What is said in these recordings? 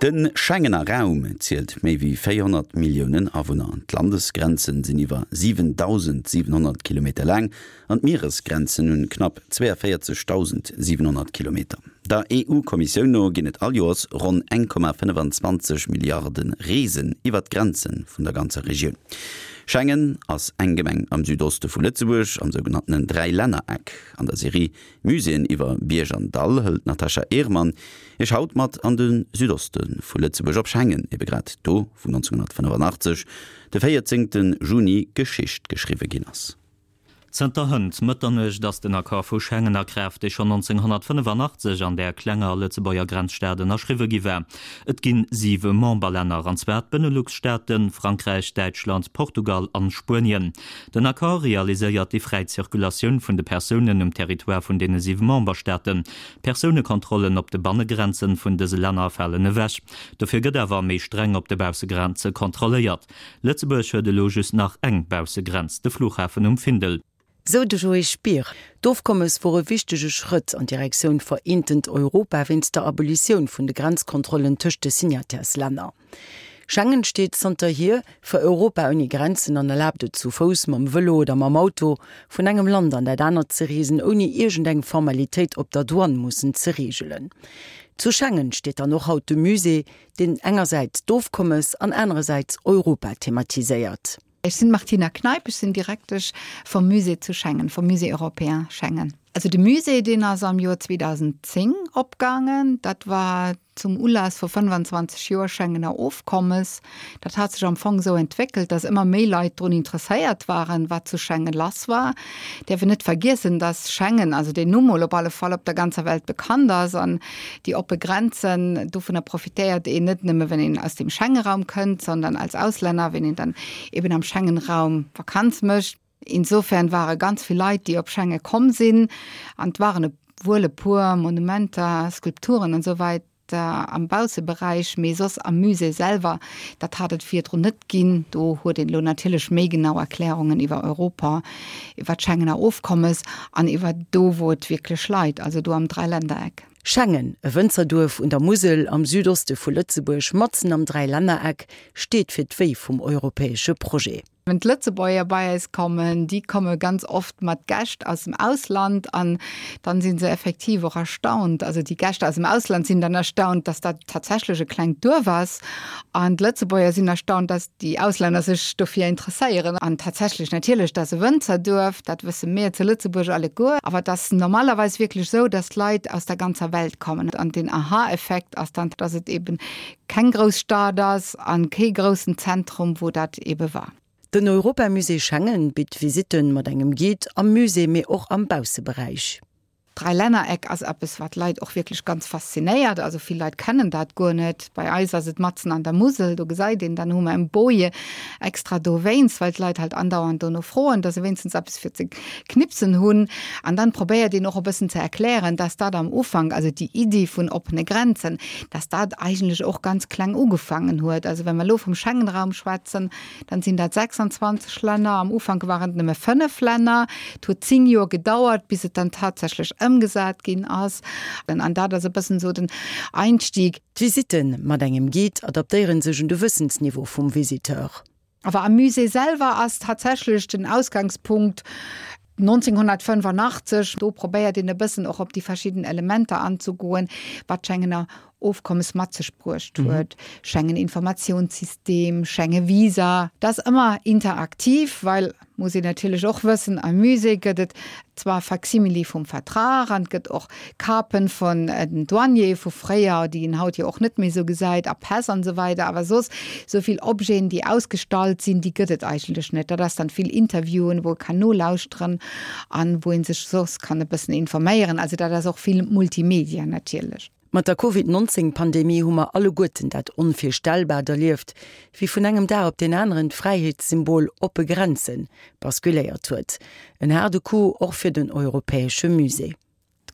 De Schengener Raum zielt méi wéi 400 Milliounen Awunner. D'Landesgrenzen sinn iwwer 7.700 Kilometer laang an d'Mieresgrenzen hunn knapp 42.700 Kilometer. Der EU-Kommissioun no ginn et all Joers ronn 1,25 Milliarde Reesen iwwer d'Grenze vun der ganzer Regioun. Schengen ass eng Gemeng am Südoste vu Lëtzebuerg, am sougenanntenen Dräilännereck. An der Serie Muséeën iwwer Bierg an Dall hëlt d'Natasha Ehrmann Iech haut mat an de Südoste vu Lëtzebuerg, op Schengen, ebe grad do, wou 1985, de 14 Juni, Geschicht geschriwwe ginn ass. Zënter hënt Mëtternuecht ass den Accord vu Schengen a Kraaft, dee schonn 1985 an där klenger Lëtzebuerger Grenzstad ënnerschriwwe gi war. Et ginn siwe Memberlänner, an zwar d'Benelux-Staaten, Frankräich, Däitschland, Portugal an Spuenien. Den Accord realiséiert déi fräi Zirkulatioun vun de Persounen um Territoire vun deene siwe Memberstaaten. D'Persounekontrollen op de Bannegrenzen vun dëse Länner falen ewech. Dofir gëtt awer méi streng op de Baussegrenze kontrolléiert. Lëtzebuerg huet elo just nach eng Baussegrenz, de Flughafen um Findel. Sou de Joé Spier. D'Ofkommes wor e wichtege Schrëtt an Direktioun vereentent Europa wéinst der Abolitioun vun de Grenzkontrollen tëscht de Signataires-Länner. Schengen steet zanterhier fir Europa ouni Grenzen an erlaabt et zu Fouss, mam Vëlo oder mam Auto vun engem Land an dat anert ze reesen, ouni iergendeng Formalitéit op der Douane mussen ze reegelen. Zu Schengen steet dann och haut de Musée, deen engersäits d'Ofkommes an anerersäits Europa thematiséiert. Ech sinn d'Martina Kneip, ech sinn Direktesch vum Musée zu Schengen, vum Musée européen Schengen. Also de Musée, deen ass am Joer 2010 opgaangen. Dat war zum Ulass vu 25 Joer Schengener Ofkommes. Dat hat sech am Fong esou entwéckelt, datt ëmmer méi Leit drun interesséiert waren, wat zu Schengen lass war. Däerf een net vergiessen, datt Schengen, also deen Numm mol op alle Fall, op der ganzer Welt bekannt ass an déi oppe Grenzen, dovunner profitéiert een net nëmme wenn een aus dem Schengenraum kënnt, sondern als Auslänner, wenn een dann eben am Schengenraum Vakanz mécht. Insofern ware ganz vill Leit, déi op Schengen komm sinn an et waren e wuel e puer Monumenter, Skulpturen an esou weider am Bausseberäich, mee soss am Musée selwer, dat hat et virdrun net ginn. Do huet een elo natierlech méi genau Erklärungen iwwer Europa, iwwer d'Schengener Ofkommes an iwwer do, wou et wierklech leit, also do am Dräilännereck. Schengen, e Wënzerduerf un der Musel am Südoste vu Lëtzebuerg, matzen am Dräilännereck, steet fir d'Wéi vum europäesche Projet. Wenn d'Lëtzebuerger bei eis kommen, déi komme ganz oft mat Gäscht aus dem Ausland an dann si se effektiv och erstaunt. Also déi Gäscht aus dem Ausland sinn dann erstaunt, dass dat tatsächlech e klengt Duerf ass an d'Lëtzebuerger sinn erstaunt, dass déi Auslänner sech dofir interesséieren. An tatsächlech, natierlech, dat ass e Wënzerduerf, dat wësse mir zu Lëtzebuerg alleguer, awer et ass normalerweis wierklech esou, dass d'Leit aus der ganzer Welt kommen. An den Aha-Effekt ass dann, dass et eben keng grouss Stad ass a kee groussen Zentrum, wou dat ebe war. Den Europamusée Schengen bitt Visitten mat engem Guide am Musée, mee och am Bausseberäich. D'Dräilännereck ass eppes, wat d'Leit och wierklech ganz faszinéiert. Also vill Leit kennen dat guer net. Bei eis ass et matzen an der Musel, do gesäit een, dann hu mer en Boje extra dowéinst, well d'Leit halt andauernd dono froen, dass se wéinstens eppes fir ze knipsen hunn. An dann probéiert een och e bëssen ze erklären, dass dat am Ufank, also déi Iddi vun oppene Grenzen, dass dat eigentlech och ganz kleng ugefaangen huet. Also wa mer elo vum Schengenraum schwätzen, dann sinn dat 26 Länner. Am Ufank waren et nëmme 5 Länner. Et huet 10 Joer gedauert, bis et dann tatsächlech ëmgesat ginn ass. An dat ass e bëssen esou den Einstieg. D'Visitten mat engem Guide adaptéiere sech un de Wëssensniveau vum Visiteur. Awer am Musée selwer ass tatsächlech den Ausgangspunkt 1985. Do probéiert een e bëssen och op déi verschidden Elementer anzegoen, wat d'Schengener Ofkommes mat sech bruecht huet, Schengen-Informatiounssystem, Schengen-Visa. Dat ass ëmmer interaktiv, well, muss een natierlech och wëssen, am Musée gëtt et zwar Facsimile vum Vertrag an et gëtt och Kapen vun den Douaniere vu fréier, déi een haut jo och net méi esou gesäit, a Päss an esou weider, awer soss esou vill Objeten, déi ausgestallt sinn, déi gëtt et eigentlech net. Dat ass dann vill Interviewen, wou e kann nolauschteren an wou ee sech soss kann e bëssen informéieren. Also dat ass och vill Multimedia natierlech. Mat der Covid 19 Pandemie hu mer alleguerten dat Onvirstellbaart erlieft, wéi vun engem Dag op deen aneren d'Fräiheetssymbol oppe Grenzen basculéiert huet. En haarde Coup och fir den Europäesche Musée.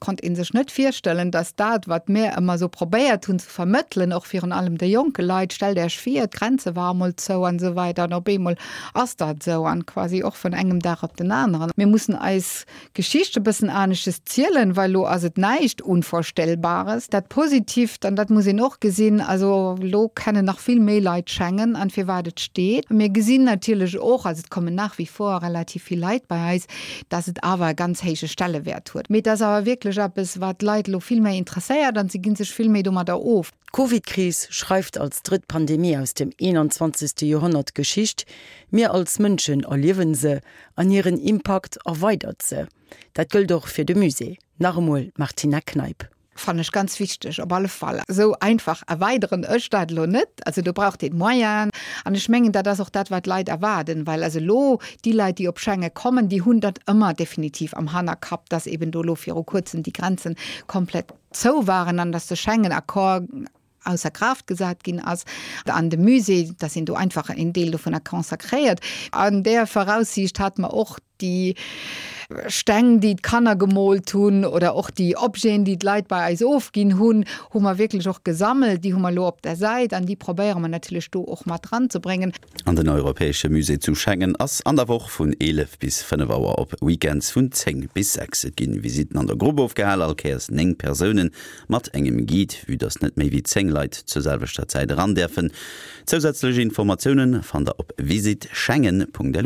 konnt ee sech net virstellen, dass dat, wat mir ëmmer esou probéiert hunn ze vermëttelen, och virun allem de jonke Leit, stellt Äech vir, d'Grenze ware mol zou an esou weider an op eemol ass dat esou an quasi och vun engem Dag op den aneren. Mir mussen eis Geschicht e bëssen anesches zielen, well elo ass et näischt Unvorstellbares. Dat Positivt, an dat muss een och gesinn, also elo kennen nach vill méi Leit Schengen an firwat et steet. Mir gesinn natierlech och, also et kommen nach wie vor relativ vill Leit bei eis, dass et awer e ganz héije Stellewäert huet. Mee et ass awer wierklech eppes, wat d'Leit elo vill méi interesséiert an se gi sech vill méi domadder of. D'Covidkris schreift als drëtt Pandemie aus dem 21. Joerhonnert Geschicht. Mir als Mënschen erliewen se an hiren Impakt erweidert se. Dat gëllt och fir de Musée. Nach emol d'Martina Kneip. Fannen ech ganz wichteg, op alle Fall. Esou einfach erweideren ech dat elo net. Also do braucht een Moyenen. An ech mengen, dat ass och dat, wat d'Leit erwaarden, well also elo déi Leit, déi op Schengen kommen, déi hunn dat ëmmer definitiv am Hannerkapp, dass eben do elo viru Kuerzem déi Grenzen komplett zou waren an dass de Schengen-Accord ausser Kraaft gesat ginn ass, an de Musée, dass een do einfach een Deel dovunner consacréiert. An där Voraussiicht hate mer och déi Steng, déi d'Kanner gemoolt hunn, oder och déi Objeten, déi d'Leit bei eis ofginn hunn, hu mer wierklech och gesammelt. Déi hu mer elo op der Säit an déi probéiere mer natierlech do och mat eranzebréngen. An den Europäesche Musée zu Schengen ass an der Woch vun 11 bis 5 Auer, op Weekends vun 10 bis 6. Et ginn Visitten an der Grupp ofgehal, all Kéiers 9 Persounen mat engem Guide, vue dass net méi wéi 10 Leit zur selwechter Zäit eran däerfen. Zousätzlech Informatiounen fannt der op visitschengen.lu.